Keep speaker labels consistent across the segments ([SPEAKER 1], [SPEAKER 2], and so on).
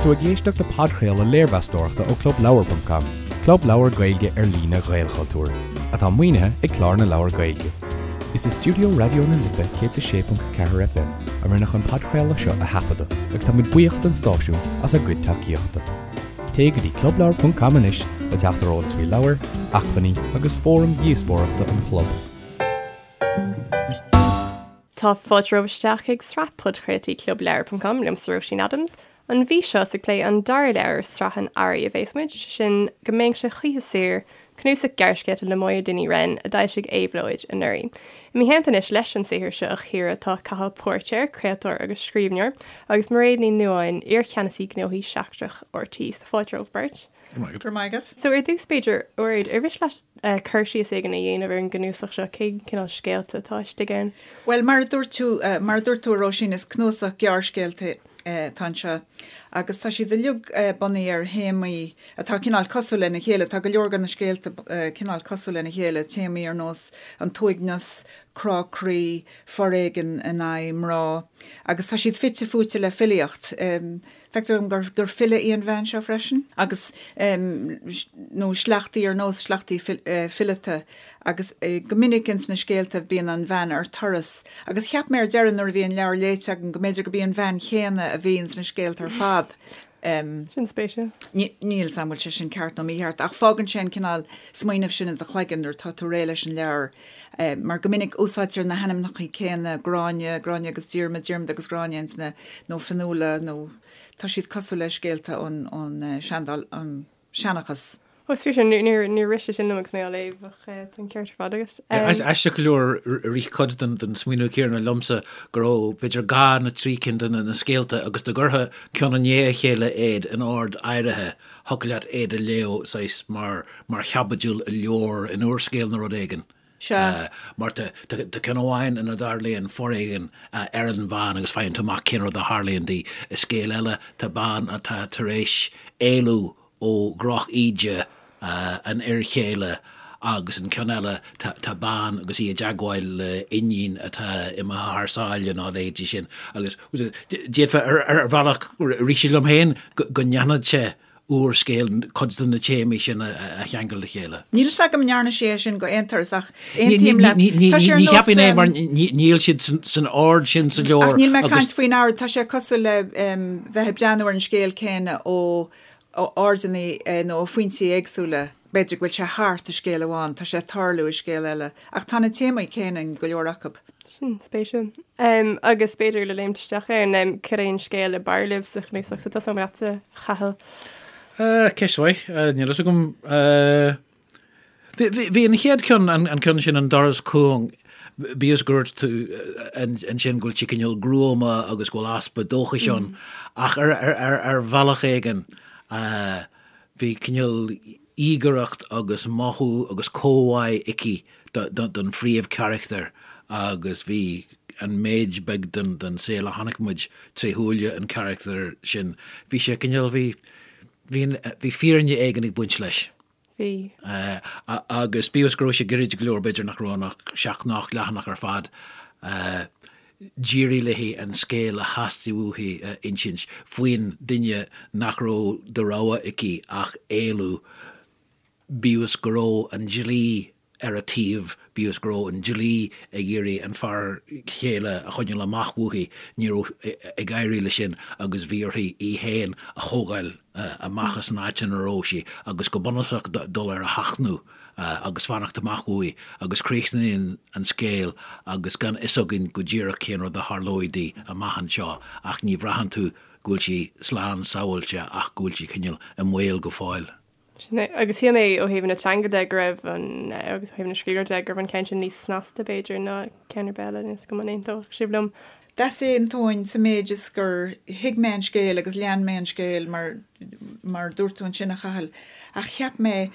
[SPEAKER 1] tú ag éisteacht le podchraoladh léirmheastóireachta ó ClubLeabhar.com, club leabhar Gaeilge ar líne Ghaelchultúir, atá maoinithe ag Clár na Leabhar Gaeilge. Is i stiúideo Raidió na Life 106.4 FM a rinneadh an podchraoladh seo a thaifeadadh agus tá muid buíoch don stáisiún as a gcuid tacaíochta. Téigh go dtí clubleabhar.com anois le teacht ar eolas faoi leabhair, acmhainní agus fóraim dhíospóireachta an chlub.
[SPEAKER 2] Tá fáilte romhaibh isteach chuig sraith podchraoltaí Clubleabhar ponc com liomsa Róisín Adams. An mhí seo is ag plé an dara leabhar i sraith an Earraigh a bhéas muid, sé sin Go mbeinnse choíche saor, cnuasach gearrscéalta le Máire Dinny Wren a d'fhoilsigh Éabhlóid anuraidh. I mo theannta anois leis an saothar seo a chíoradh tá Cathal Póirtéir, craoltóir agus scríbhneoir, agus Mairéad Ní Nuadháin, iar-Cheannasaí Gnóthaí Seachtrach RTÉ. So fáilte romhaibh beirt.
[SPEAKER 3] Go raibh maith agat.
[SPEAKER 2] So ar dtús b'fhéidir, a Mhairéad, ar mhiste leat cur síos éigin a dhéanamh ar an gcnuasach seo, cén cineál scéalta atá istigh ann?
[SPEAKER 3] Bhuel, mar a dúirt tú, mar a dúirt tú a Róisín, is cnuasach gearrscéalta atá anseo agus tá siad uilig bunaithe ar théamaí atá cineál cosúil lena chéile. Tá go leor de na scéalta cineál cosúil lena chéile, téamaí ar nós an t-uaigneas, crá croí, foréigean in aghaidh mná agus tá siad fite fuaite le filíocht. Feictear dom gur file í an bhean seo freisin, agus, nó sleachtaí ar nós sleachtaí fileata, agus go minic ins na scéalta bíonn an bhean ar turas, agus cheap mé ar deireadh nuair a bhí an leabhar léite agam go mb'fhéidir gurb í an bhean chéanna a bhí ins na scéalta ar fad.
[SPEAKER 2] Sin spéisiúil.
[SPEAKER 3] Níl 'fhios a'm an bhfuil sé sin ceart nó mícheart, ach fágann sé an cineál smaoineamh sin i do chloigeann nuair atá tú réidh leis an leabhar. Mar go minic úsáidtear na hainmneacha céanna, Gráinne, Gráinne agus Diarmaid, Diarmaid agus Gráinne ins na, nó Fionnuala nó tá siad cosúil le scéalta ón, ón seandáil, an seanchas.
[SPEAKER 2] Ó, is fíor sin, níor, níor rith sé sin liom agus mé á léamh ach tá an ceart ar fad agat.
[SPEAKER 4] Aisteach go leor, rith cuid den smaoineamh céanna liomsa go raibh b'fhéidir dhá nó trí cinn de na scéalta agus dá gcuirfeá ceann i ndiaidh a chéile iad in ord áirithe, thiocfadh leat iad a léamh saghas mar mar chaibidil i leabhar, in úrscéal nó rud éigin.
[SPEAKER 3] Sea.
[SPEAKER 4] Mar tá ceann amháin ina dtarlaíonn foréigean ar an bhean agus faigheann tú amach cén rud a tharlaíonn di. I scéal eile tá bean atá tar éis éalú ó dhroch-íde an fhir chéile agus an ceann eile tá bean agus í i dteagmháil le iníon atá imithe thar sáile nó a leithéidí sin agus d'fhéadfá ar bhealach rith sé liom féin go ndéanfadh sé úrscéal cuid de na téamaí sin a cheangal le chéile.
[SPEAKER 3] Níl fhios agam an ndearna sí é sin go aon turas ach aontaím leat.
[SPEAKER 4] Tá sé ar nós. Ní cheapfainn é mar níl siad san ord sin sa leabhar.
[SPEAKER 3] Ach níl mé ag caint faoin ord, tá sé cosúil le bheith ag breathnú ar an scéal céanna ó airdeanna nó ó phointí éagsúla. B'fhéidir go bhfuil sé thart i scéal amháin, tá sé ag tarlú i scéal eile. Ach tá na téamaí céanna in go leor acu.
[SPEAKER 2] Sin spéisiúil. Agus b'fhéidir le léimt isteach ann, cad é an scéal ab fhearr libh sa chnuasach? So tosóidh mé leatsa, a Chathail.
[SPEAKER 4] Ceist mhaith. Níl fhios agam. Bhí an chéad ceann, an ceann sin, An Doras Cúng, bíodh is gur dúirt tú ansin go bhfuil sé cineál gruama agus go bhfuil easpa dóchais ann, ach ar bhealach éigin, Bhí cineál íogaireacht agus mothú agus comhbhá aici don phríomhcharachtar agus bhí an méid beag den saol a chonaic muid tré shúile an charachtair sin, bhí sé cineál, bhí, bhí, bhí fírinne éigin ag baint leis.
[SPEAKER 2] Bhí.
[SPEAKER 4] Agus bíodh is go raibh sé gairid go leor, b'fhéidir nach raibh ann ach seacht nó ocht leathanach ar fad, d'éirigh léi an scéal a theastaigh uaithi a insint faoin duine nach raibh de rogha aici ach éalú, bíodh is go raibh an dlí ar a taobh, bíodh is go raibh an dlí ag iarraidh an fear céile a choinneáil amach uaithi, ní raibh ag éirí leis sin agus bhí uirthi í féin a thógáil amach as an áit ina raibh sí agus go bunúsach dul ar a sheachnadh agus fanacht amach uaidh agus críochnaíonn an scéal agus gan fhios againn go díreach cén rud a tharlóidh di amach anseo ach ní bhraitheann tú go bhfuil sí slán sábháilte ach go bhfuil sí cineál i mbaol go fóill.
[SPEAKER 2] Sin é. Agus shíl mé ó thaobh na teanga de go raibh an, agus ó thaobh na scríbhneoireachta de, go raibh an ceann sin níos snasta b'fhéidir ná ceann ar bith eile, níl 'fhios agam an aontódh sibh liom.
[SPEAKER 3] D'easaontóinn sa méid is gur thuig mé an scéal agus lean mé an scéal mar, mar a dúirt tú ansin a Chathail, ach cheap mé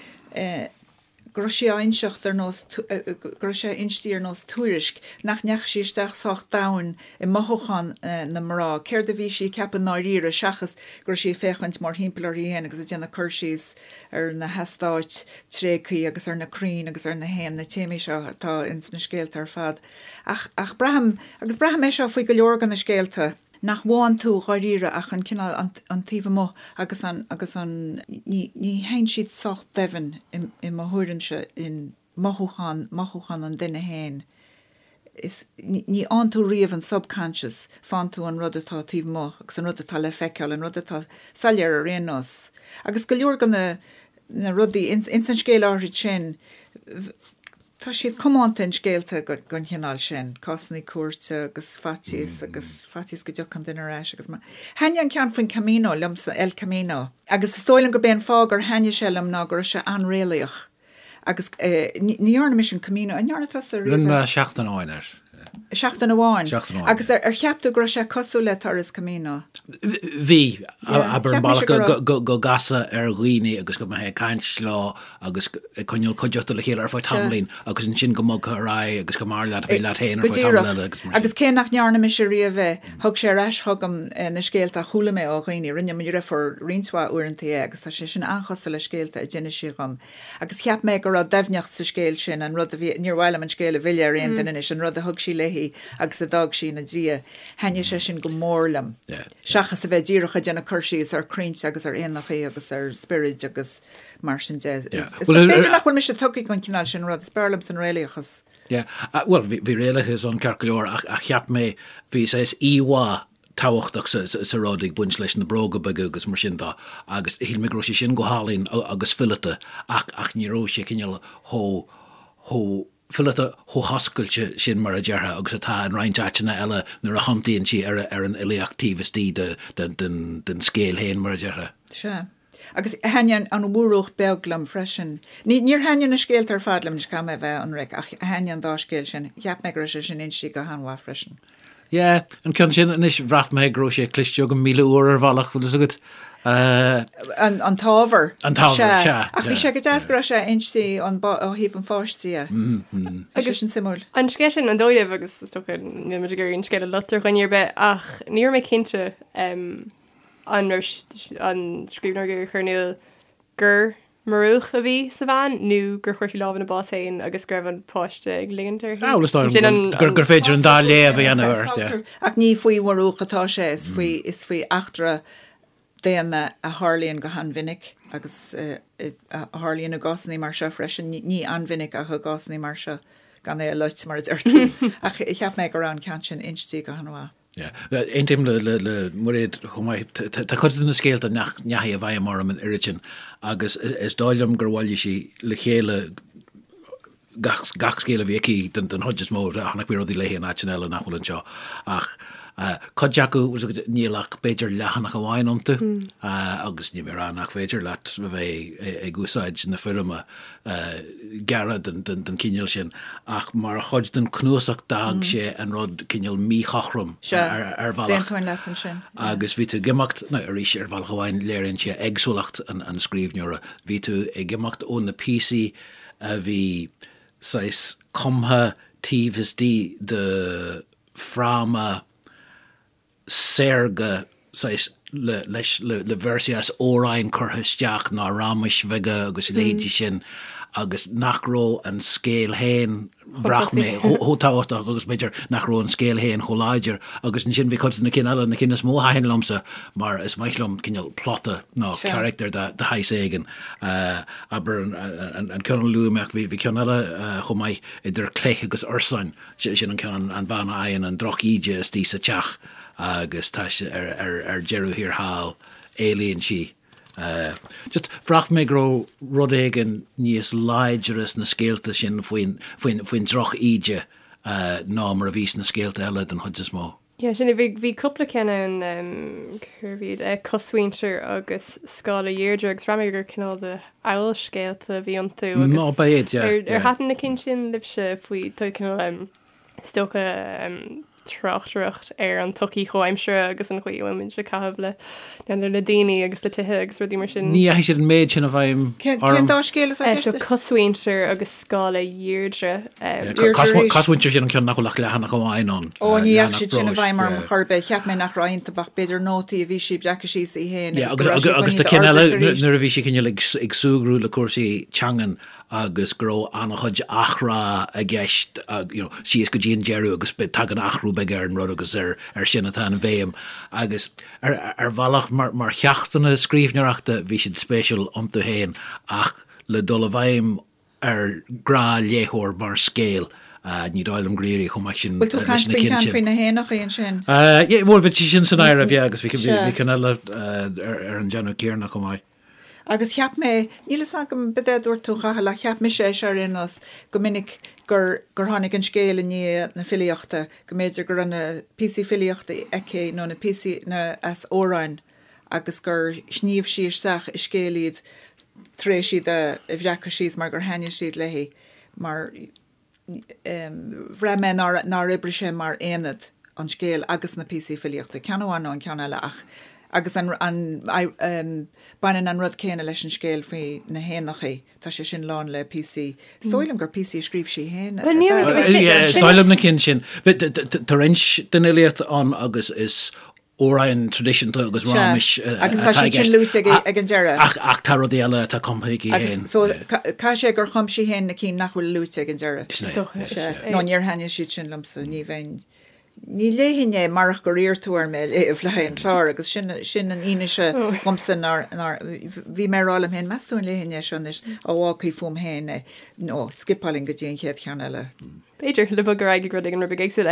[SPEAKER 3] go raibh sí á inseacht ar nós, go raibh sé inste ar nós tuairisc, nach ndeachaigh sí isteach sách domhain i mothúcháin na mná, céard a bhí sí ag ceapadh i ndáiríre, seachas go raibh sí ag féachaint mórthimpeall uirthi féin agus ag déanamh cur síos ar na heastáit tréigthe agus ar na crainn agus ar na héin, na téamaí seo atá ins na scéalta ar fad. Ach, ach braithim, agus braithim é seo faoi go leor de na scéalta. nach bhfaigheann tú dháiríre ach an cineál, an, an taobh amuigh agus an, agus an, ní, ní théann siad sách doimhin i, i mo thuairimse in mothúchán, mothúchán an duine féin. Is, ní, ní fhaigheann tú riamh an subconscious, faigheann tú an rud atá taobh amuigh agus an rud atá le feiceáil, an rud atá soiléir ar aon nós. Agus go leor de na, na rudaí ins, ins an scéal áithrid sin, Tá siad comónta in scéalta den chineál sin, cásanna cúirte agus faitíos agus faitíos go dtiocfaidh an duine ar ais agus mar. Thaitnigh an ceann faoin Camino liomsa, El Camino, agus is dóigh liom gurb é an fáth gur thaitnigh sé liom ná go raibh sé an-réalaíoch agus ní dhearna mise an Camino, an ndearna tusa
[SPEAKER 4] riamh é? Rinne mé seachtain amháin air.
[SPEAKER 3] Seachtain amháin? Seachtain amháin. Agus ar cheap tú go raibh sé cosúil le turas Camino?
[SPEAKER 4] Bhí. Abair an bealach go gcasfá ar dhaoine agus go mbeifeá ag caint leo agus ag coinneáil cuideachta le chéile ar feadh tamaillín agus ansin go mbogfá ar aghaidh agus go mb'fhearr leat a bheith leat féin ar feadh tamall
[SPEAKER 3] eile agus mar sin. Agus cé nach ndearna mise riamh é, thug sé ar ais chugam na scéalta a chuala mé ó dhaoine. Rinne mo dhriofúr roinnt mhaith uaireanta é agus tá sé sin an-chosúil le scéalta a d'inis sí dhom. Agus cheap mé go raibh doimhneacht sa scéal sin, an rud a bhí, níor mhaith liom an scéal a mhilleadh ar aon duine anois, an rud a thug sí léi agus a d'fhág sí ina diaidh. Thaitnigh sé sin go mór liom. Seachas a bheith díreach ag déanamh cur síos ar chrainnte agus ar éanachaí agus ar spioraid agus mar sin de. B'fhéidir nach bhfuil mise tugtha don chineál sin rud, is b'fhearr liomsa an réalaíochas.
[SPEAKER 4] Yeah, bhuel, bhí réalachas ann ceart go leor ach cheap mé, bhí saghas íomhá tábhachtach sa rud ag baint leis na bróga beaga agus mar sin de agus shíl mé go raibh sé sin go hálainn agus fileata ach ach ní raibh sé cineál chomh chomh fileata chomh hoscailte sin mar a déarfá agus atá in roinnt áiteanna eile nuair a thiontaíonn sí ar ar an fhilíocht taobh istigh de den den den scéal féin mar a déarfá.
[SPEAKER 3] Sea. Agus thaitnigh an Mhurúch Beag liom freisin. Ní, níor thaitnigh na scéalta ar fad liom, anois caithfidh mé a bheith ionraic, ach thaitnigh an dá scéal sin. Cheap mé go raibh sé sin inste go han-mhaith freisin.
[SPEAKER 4] Yeah, an ceann sin anois, bhraith mé go raibh sé cloiste agam 1,000 uair ar bhealach, bhfuil fhios agat.
[SPEAKER 3] An, an t-ábhar.
[SPEAKER 4] An t-ábhar, sea.
[SPEAKER 3] Sea. Ach bhí sé go deas go raibh sé inste ón, ó thaobh an pháiste dhe. Bhí sé sin suimiúil.
[SPEAKER 2] An scéal sin, an dóigh libh, agus is dócha níl muid ag iarraidh an scéal a loit ar dhuine ar bith, ach ní raibh mé cinnte an raibh an scríbhneoir ag iarraidh a chur in iúl gur murúch a bhí sa bhean nó gur chuir sí lámh ina bás féin agus go raibh an páiste ag ligint uirthi.
[SPEAKER 4] Ah, bhuel, is dóigh liom gur féidir an dá léamh a dhéanamh air,
[SPEAKER 3] yeah. Ach ní faoi mhurúch atá sé, is faoi, is faoi eachtra daonna a tharlaíonn go han-mhinic agus a tharlaíonn i gcásanna mar seo freisin, ní an-mhinic ach i gcásanna mar seo, gan é a loit, mar a deir tú. Ach cheap mé go raibh an ceann sin inste go han-mhaith.
[SPEAKER 4] Aontaím le Muiréad chomh maith. Tá cuid de na scéalta nach ndeachaigh i bhfeidhm orm an oiread sin agus is dóigh liom gur bhailigh sí le chéile gach scéal a bhí aici den chuid is mó. Chonaic mé rudaí léi in áiteanna eile nach bhfuil anseo ach cuid acu, níl ach b'fhéidir leathanach amháin iontu agus níl mé ag rá nach féidir leat a bheith ag úsáid na foirme gearra den chineál sin, ach mar chuid den chnuasach d'fhág sé an rud cineál míchothrom ar
[SPEAKER 3] bhealach. D'aontóinn leat ansin.
[SPEAKER 4] Agus bhí tú ag imeacht, nó arís ar bhealach amháin léiríonn sé éagsúlacht an scríbhneora, bhí tú ag imeacht ó na píosaí a bhí saghas cumtha taobh istigh de fráma saorga, saghas, le, leis, le, le véarsaí as amhráin curtha isteach nó rámais bheaga agus a leithéidí sin agus nach raibh an scéal féin, bhraith mé, chomh tábhachtach agus b'fhéidir nach raibh an scéal féin chomh láidir. Agus ansin bhí cuid de na cinn eile, na cinn is mó a thaitin liomsa mar is maith liom cineál plota nó carachtar de shaghas éigin. Abair an ceann a luaigh mé ach bhí ceann eile chomh maith, Idir Cleith agus Ursáin. Sin an ceann, an bhean a fhaigheann an droch-íde istigh sa teach agus tá sé ar deireadh thiar thall, éalaíonn sí. Just, bhraith mé go raibh rud éigin níos láidre sna scéalta sin faoin droch-íde ná mar a bhí sna scéalta eile den chuid is mó.
[SPEAKER 2] Yeah, sin é. Bhí, bhí cúpla ceann ann, cérbh iad, eh, Cosmhuintir agus Scála Dheirdre agus bhraith mé gur cineál de fhabhalscéalta a bhí iontu agus
[SPEAKER 4] Nó ba iad, yeah,
[SPEAKER 2] ar, ar
[SPEAKER 4] yeah.
[SPEAKER 2] thaitin na cinn sin libhse faoi, tá cineál, em, is dócha, em, tráchtaireacht ar an tsochaí chomhaimseartha agus an chaoi a bhfuil muid ag caitheamh le, n'fheadar, le daoine agus le tithe agus rudaí mar sin.
[SPEAKER 4] Ní dheachaigh siad an méid sin i bhfeidhm
[SPEAKER 3] Cén, orm. cén dá scéal atá i
[SPEAKER 2] Eh, so
[SPEAKER 3] gceist?
[SPEAKER 2] Cosmhuintir agus Scála Dheirdre.
[SPEAKER 4] Cosmhuintir sin an ceann nach bhfuil ach leathanach amháin ann.
[SPEAKER 3] Ó, ní dheachaigh siad sin i bhfeidhm orm chor ar bith. Cheap mé nach raibh iontu ach b'fhéidir nótaí a bhí sí ag breacadh síos í féin
[SPEAKER 4] agus go raibh sí chun iad a fhorbairt arís. Agus tá cinn eile nuair a bhí sí cineál ag súgradh le cúrsaí teangan. agus go raibh an-chuid athrá i gceist you know síos go dtí an deireadh agus tagann athrú beag ar an rud agus ar ar sin atá an bhéim agus ar ar bhealach mar mar cheachtanna scríbhneoireachta bhí siad spéisiúil iontu féin ach le dul i bhfeidhm ar ghnáthléitheoir mar scéal ní dóigh liom gur éirigh chomh maith sin
[SPEAKER 3] Bhfuil tú ag
[SPEAKER 4] leis
[SPEAKER 3] caint
[SPEAKER 4] na
[SPEAKER 3] faoin
[SPEAKER 4] cinn
[SPEAKER 3] ceann
[SPEAKER 4] sin.
[SPEAKER 3] faoi na héanachaí ansin?
[SPEAKER 4] Yeah, bhuel bhí sin san áireamh, yeah, agus bhí
[SPEAKER 3] Sea.
[SPEAKER 4] bhí ceann eile ar ar an déanamh céanna chomh maith.
[SPEAKER 3] Agus cheap mé, níl fhios agam cad é a dúirt tú a Chathail, ach cheap mise é seo ar aon nós, go minic gur, gur tháinig an scéal i ndiaidh na filíochta, go mb'fhéidir go raibh na píosaí filíochta aici nó na píosaí, na, as amhráin agus gur shníomh sí isteach i scéal iad tar éis iad a bhreacadh síos mar gur thaitnigh siad léi mar. bhraith mé nár oibrigh sé mar aonad, an scéal agus na píosaí filíochta, ceann amháin nó an ceann eile ach, agus an, an, baineann an rud céanna leis an scéal faoi na héanachaí, tá sé sin lán le píosaí, is dóigh liom gur píosaí a scríobh sí féin ab
[SPEAKER 4] ea. Is dóigh liom na cinn sin. Tá roinnt den fhilíocht ann agus is amhráin traidisiúnta agus raiméis
[SPEAKER 3] Agus tá
[SPEAKER 4] atá i
[SPEAKER 3] siad sin
[SPEAKER 4] gceist.
[SPEAKER 3] luaite ag an deireadh.
[SPEAKER 4] Ach ach tá rudaí eile atá cumtha aici
[SPEAKER 3] Agus
[SPEAKER 4] féin.
[SPEAKER 3] so caithfidh sé gur chum sí féin na cinn nach bhfuil luaite ag an deireadh.
[SPEAKER 4] Sin é.
[SPEAKER 2] Is dócha.
[SPEAKER 3] Sea. Nó níor thaitnigh siad sin liomsa, ní bheinn, ní léifinn é marach gur iarr tú orm é a léamh le haghaidh an chláir agus sin, sin an fhianaise dhomsa nár, nár, bhí mé ag rá liom féin, meas tú an léifinn é seo anois, á fhágfaí fúm féin é, nó scipeálfainn go dtí an chéad cheann eile.
[SPEAKER 2] B'fhéidir, le bogadh ar aghaidh ag rud éigin rud beag éagsúil.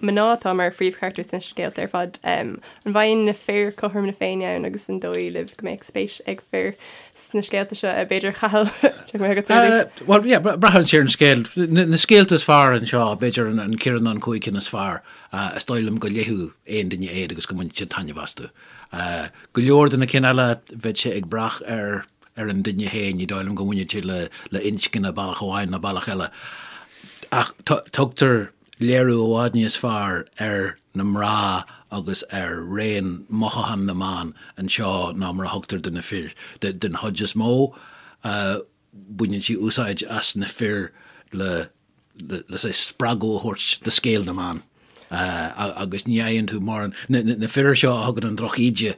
[SPEAKER 2] Mná atá mar phríomhcharachtair sna scéalta ar fad. An bhfaigheann na fir cothrom na Féinne ann agus an dóigh libh go mbeadh spéis ag fir sna scéalta seo? B'fhéidir, a Chathail, téigh mé chugat ar dtús.
[SPEAKER 4] Bhuel, yeah, braitheann sé ar an scéal. Na scéalta is fearr anseo, b'fhéidir an ceithre nó an chúig cinn is fearr, is dóigh liom go léifeadh aon duine iad agus go mbainfeadh siad taitneamh astu. Go leor de na cinn eile, bheadh sé ag brath ar ar an duine féin, ní dóigh liom go mbaineann sé le inscne bealach amháin nó bealach eile. Ach tugtar léiriú i bhfad níos fearr ar na mná agus ar raon mothúchán na mban anseo ná mar a thugtar do na fir. Den chuid is mó, baineann sí úsáid as na fir le le saghas spreagadh a thabhairt do scéal na mban agus ní fhaigheann tú mórán, na fir seo a thugann an drochíde,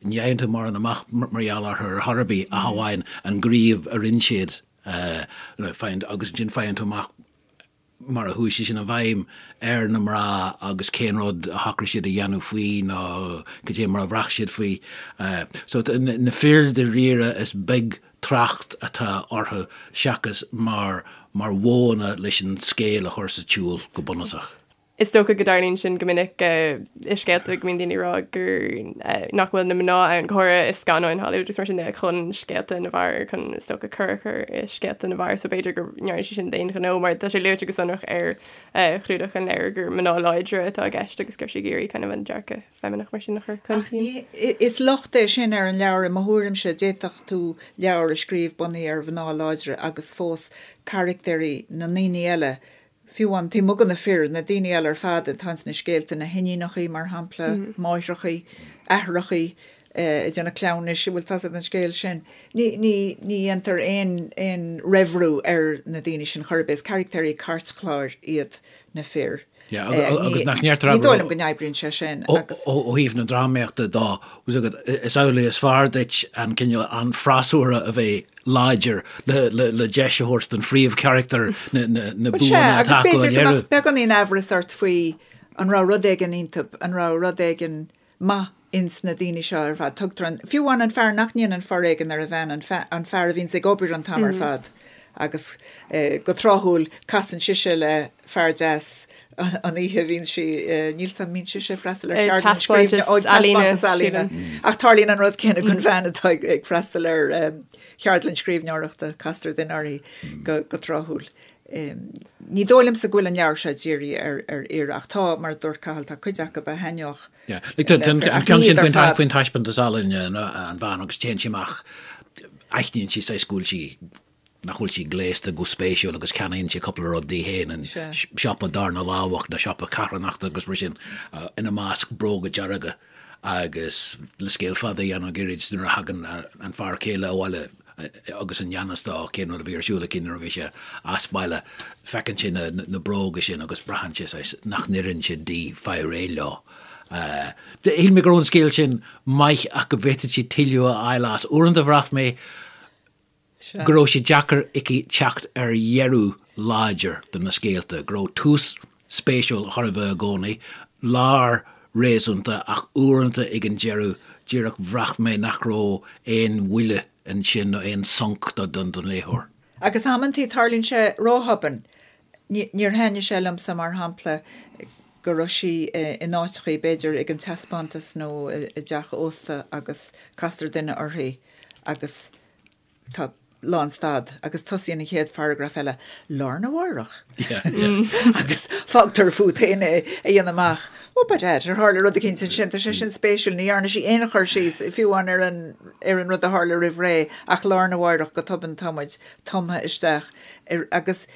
[SPEAKER 4] ní fhaigheann tú mórán amach mar gheall orthu ar chor ar bith ach amháin an gníomh a rinne siad agus ansin faigheann tú amach mar a chuaigh sé sin i bhfeidhm ar na mná agus cén rud a shocraigh siad a dhéanamh faoi nó cad é mar a bhraith siad faoi. So na fir dáiríre is beag trácht atá orthu seachas mar mar mhodhanna leis an scéal a chur sa tsiúl go bunúsach.
[SPEAKER 2] Is dócha go dtarlaíonn sin go minic i scéalta go mbíonn daoine ag rá gur nach bhfuil na mná ann, go háirithe i scannáin Hollywood agus mar sin de, chun scéalta na bhfear, chun is dócha cor a chur i scéalta na bhfear so b'fhéidir go ndearna sí sin d'aon ghnó mar tá sé luaite go sonrach ar chlúdach an leabhair gur mná láidre atá i gceist agus go raibh sí ag iarraidh kind of an dearcadh feimineach mar sin a chur chun cinn.
[SPEAKER 3] Is locht é sin ar an leabhar i mo thuairimse. D'fhéadfadh tú leabhar a scríobh bunaithe ar mhná láidre agus fós carachtair na ndaoine eile, fiú amháin taobh amuigh de na fir, na daoine eile ar fad atá ins na scéalta, na hiníonachaí mar shampla, máithreachaí, aithreachaí ag déanamh cleamhnais, bhfuil tá's agat an scéal sin. Ní, ní, ní dhéantar aon, aon raimhriú ar na daoine sin chor ar bith. Is carachtair cairtchláir iad na fir.
[SPEAKER 4] Yeah, agus nach ndeirtear
[SPEAKER 3] Ní dóigh liom go n-oibríonn sé sin agus.
[SPEAKER 4] Ó thaobh na drámaíochta dó, is amhlaidh is fearr duit an cineál an freasúra a bheith láidir le deis a thabhairt don phríomhcharachtar na buanna
[SPEAKER 3] atá acu a léiriú. Agus b'fhéidir go mbeadh beagáinín aimhreas ort faoi an raibh rud éigin iontu, an raibh rud éigin maith ins na daoine seo ar fad. Tugtar an, fiú amháin an fear nach ndéanann foréigean ar a bhean, an an fear a bhíonns ag obair an t-am ar fad agus go tráthúil casann sise le fear deas an oíche a bhíonn sí, níl 's a'm, mbíonn sise ag freastal ar cheardlann scríbhne, ó taispeántas ealaíne. Ach tarlaíonn an rud céanna don bhean atá ag freastal ar cheardlann scríbhneoireachta, castar duine uirthi go tráthúil. Ní dóigh liomsa go bhfuil an leabhar seo dírithe ar fhir ach tá, mar a dúirt Cathal, tá cuid acu a thaitneodh
[SPEAKER 4] Yeah. Like, an ceann sin faoin taispeántas ealaíne an bhean agus téann sí amach, aithníonn sí saghas go bhfuil sí nach bhfuil sí gléasta go spéisiúil agus ceannaíonn sí cúpla rud di féin in siopa darna lámhach nó siopa carthanachta agus mar sin, ina measc bróga dearga agus le scéal fada a dhéanamh gairid nuair a thagann an fear céile abhaile agus i ngan fhios dó cén rud a bhí ar siúl aici nuair a bhí sé as baile, feiceann sé na bróga sin agus braitheann sé saghas nach n-oireann siad di fáil réidh leo. Shíl mé go raibh an scéal sin maith ach go bhféadfadh sí tuilleadh a fháil as. Uaireanta bhraith mé. Go raibh sé deacair aici teacht ar dheireadh láidir do na scéalta, go raibh tús spéisiúil chóir a bheith i gcónaí, lár réasúnta ach uaireanta ag an deireadh díreach bhraith mé nach raibh aon bhuille ansin nó aon sonc don léitheoir.
[SPEAKER 3] Agus amantaí tarlaíonn sé róthobann. Níor thaitnigh sé liomsa, mar shampla, go raibh sí in áiteachaí, b'fhéidir ag an taispeántas nó i dteach ósta agus castar duine uirthi agus tá lánstad agus tosaíonn an chéad pharagraf eile lá arna mhárach agus fágtar fút féin é a dhéanamh amach. Ó by dad, ar tharla rud eicínt ansin, tá sé sin spéisiúil, ní dhearna sí aon chur síos, fiú amháin ar an ar an rud a tharla roimh ré ach lá arna mhárach go tobann tá muid tumtha isteach ar agus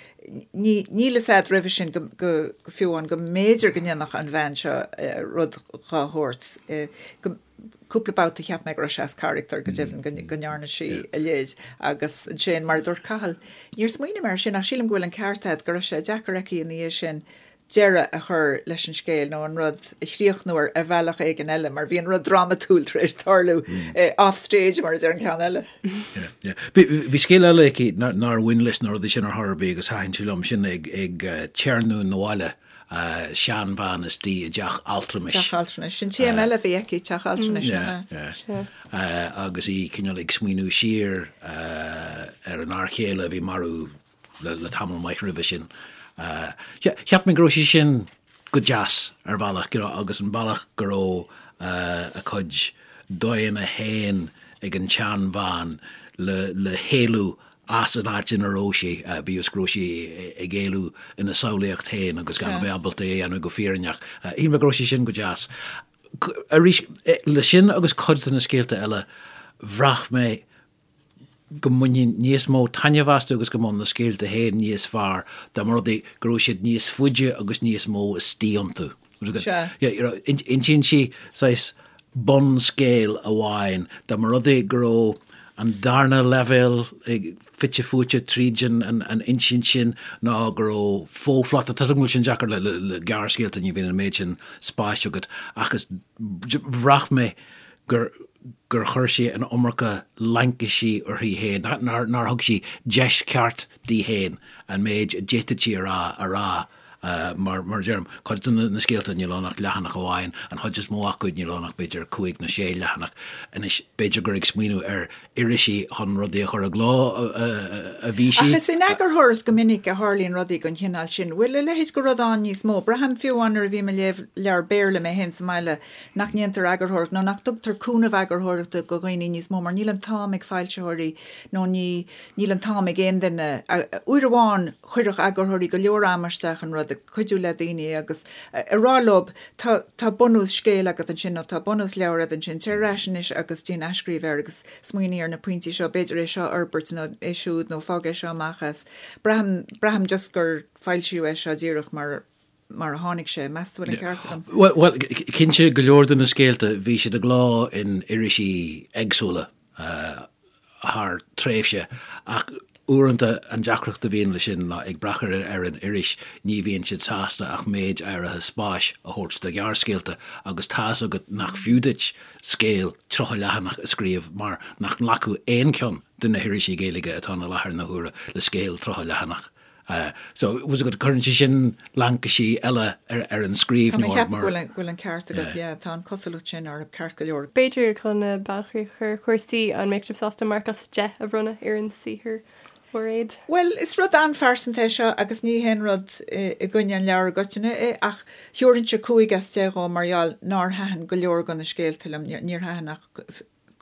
[SPEAKER 3] ní níl fhios a'd roimhe sin go go fiú amháin go mb'fhéidir go ndéanfadh an bhean seo rud dhá shórt go Cúpla babhta cheap mé go raibh sé as carachtar, go deimhin go ndearna sí a leithéid agus ansin, mar a dúirt Cathal, níor smaoinigh mé air sin ach sílim go bhfuil an ceart agat, go raibh sé deacair aici ina dhiaidh sin deireadh a chur leis an scéal nó an rud a chríochnú ar ar bhealach éigin eile mar bhí an rud drámatúil tar éis tarlú off stage mar a deir an ceann eile.
[SPEAKER 4] Bhí scéal eile aici nár bhain leis na rudaí sin ar chor ar bith agus thaitin sé liom, sin ag téarnamh 'na bhaile. seanbhean istigh i dteach altranais.
[SPEAKER 3] Teach altranais. Sin téama eile a bhí aici, teach altranais, nach
[SPEAKER 4] ea? Agus í cineál ag smaoineamh siar ar an fhear chéile a bhí marbh le tamall maith roimhe sin. Cheap mé go raibh sé sin go deas ar bhealach, you know, agus an bealach go raibh a cuid dóigheanna féin ag an tseanbhean le héalú as an áit ina raibh sí, bíodh is go raibh sí ag éalú ina samhlaíocht féin agus gan a bheith ábalta é a dhéanamh go fírinneach. Shíl mé go raibh sé sin go deas. Arís, le sin agus cuid de na scéalta eile, bhraith mé go mbainfinn níos mó taitneamh astu agus go mbeadh na scéalta féin níos fearr dá mba rud é go raibh siad níos faide agus níos mó istigh iontu.
[SPEAKER 3] Sea.
[SPEAKER 4] Insíonn sí saghas bunscéal amháin, dá mba rud é go raibh an darna leibhéal fite fuaite tríd an insint sin ná go raibh fo-phlota, tá 's agam go bhfuil sin deacair le gearrscéalta, ní bhíonn an méid sin spáis agat, ach is bhraith mé gur gur chuir sí an iomarca laincisí uirthi féin, nár thug sí deis cheart di féin an méid a d'fhéadfadh sí a rá a rá. Mar a deirim, cuid de na scéalta níl ann ach leathanach amháin, an chuid is mó acu níl ann ach b'fhéidir cúig nó sé leathanach. Anois, b'fhéidir gur ag smaoineamh ar irisí chun rudaí a chur i gcló a bhí sí.
[SPEAKER 3] Ach is in eagarthóireacht go minic a tharlaíonn rudaí den chineál sin. Bhfuil a leithéid de rud ann níos mó? Braithim fiú amháin nuair a bhím ag léamh leabhar Béarla mé féin sa mbaile nach ndéantar eagarthóireacht nó nach dtugtar cúnamh eagarthóireachta do dhaoine níos mó mar níl an t-am ag foilsitheoirí nó ní níl an t-am ag aon duine. Uair amháin Chuirfeadh eagarthóirí go leor ama isteach in rud, ag cuidiú le daoine agus ag rá leo tá tá bunús scéil agat ansin nó tá bunús leabhair agat ansin, téir ar ais anois agus déan athscríobh air agus smaoinigh ar na pointí seo, b'fhéidir é seo a fhorbairt nó é siúd nó fág é seo amach as. Braithim, braithim just gur foilsíodh é seo díreach mar mar a tháinig sé. Meas tú bhfuil an ceart agam?
[SPEAKER 4] Bhuel, cinnte go leor de na scéalta bhí siad i gcló in irisí éagsúla. thar tréimhse, ach uaireanta an deacracht a bhíonn leis sin ná ag brath ar an iris, ní bhíonn siad sásta ach méid áirithe spáis a thabhairt do ghearrscéalta agus tá's agat nach fiú duit scéal 30 leathanach a scríobh mar nach nglacfadh aon cheann de na hirisí Gaeilge atá ann i láthair na huaire le scéal 30 leathanach. So, bhfuil 's agat, cuireann sé sin laincisí eile ar an
[SPEAKER 3] scríbhneoir mar. Tá mé ag ceapadh go bhfuil an ceart agat, yeah, tá an cosúlacht sin orthu ceart go leor.
[SPEAKER 2] B'fhéidir chun bailchríoch a chur ar chúrsaí, an mbeadh sibh sásta marc as 10 a bhronnadh ar an saothar, Mhairéad?
[SPEAKER 3] Bhuel, is rud an-phearsanta é seo agus ní haon rud i gcoinne an leabhair i gcoitinne é ach thabharfainnse 5 as 10 dhó mar gheall nár thaitin go leor de na scéalta liom, níor thaitin ach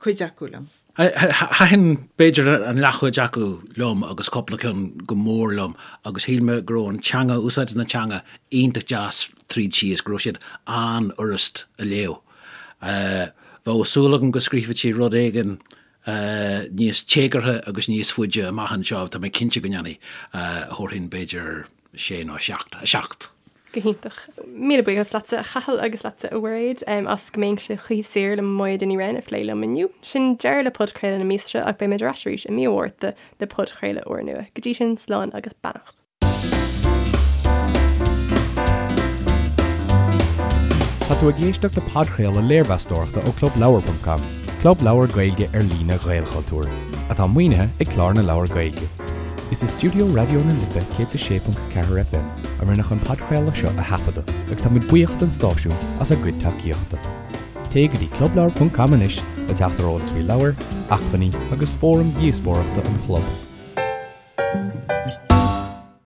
[SPEAKER 3] cuid acu liom.
[SPEAKER 4] Thaitin b'fhéidir an leathchuid acu liom agus cúpla ceann go mór liom agus shíl mé go raibh an teanga, úsáid na teanga iontach deas tríd síos, go raibh siad an-fhurast a léamh. Bheadh súil agam go scríobhfadh sí rud éigin níos téagartha agus níos faide amach anseo, tá mé cinnte go ndéanfaidh. Thabharfainn b'fhéidir sé nó seacht, 7.
[SPEAKER 2] Go hiontach. Míle buíochas leatsa, a Chathail, agus leatsa, a Mhairéad, as Go mbeinnse choíche saor le Moya Ní Riain a phlé liom inniu. Sin deireadh le podchraoladh na míosa seo ach beidh muid ar ais arís i mí an Mhárta le podchraoladh úrnua. Go dtí sin, slán agus beannacht.
[SPEAKER 1] Tá tú ag éisteacht le podchraoladh léirmheastóireachta ó ClubLeabhar.com. Club leabhar Gaeilge ar líne Ghaelchultúir, atá maoinithe ag Clár na Leabhar Gaeilge. Is i stiúideo Raidió na Life 106.4 FM a rinneadh an podchraoladh seo a thaifeadadh agus tá muid buíoch don stáisiún as a gcuid tacaíochta. Téigh go dtí clubleabhar ponc com anois le teacht ar eolas faoi leabhair, acmhainní agus fóraim dhíospóireachta an chlub.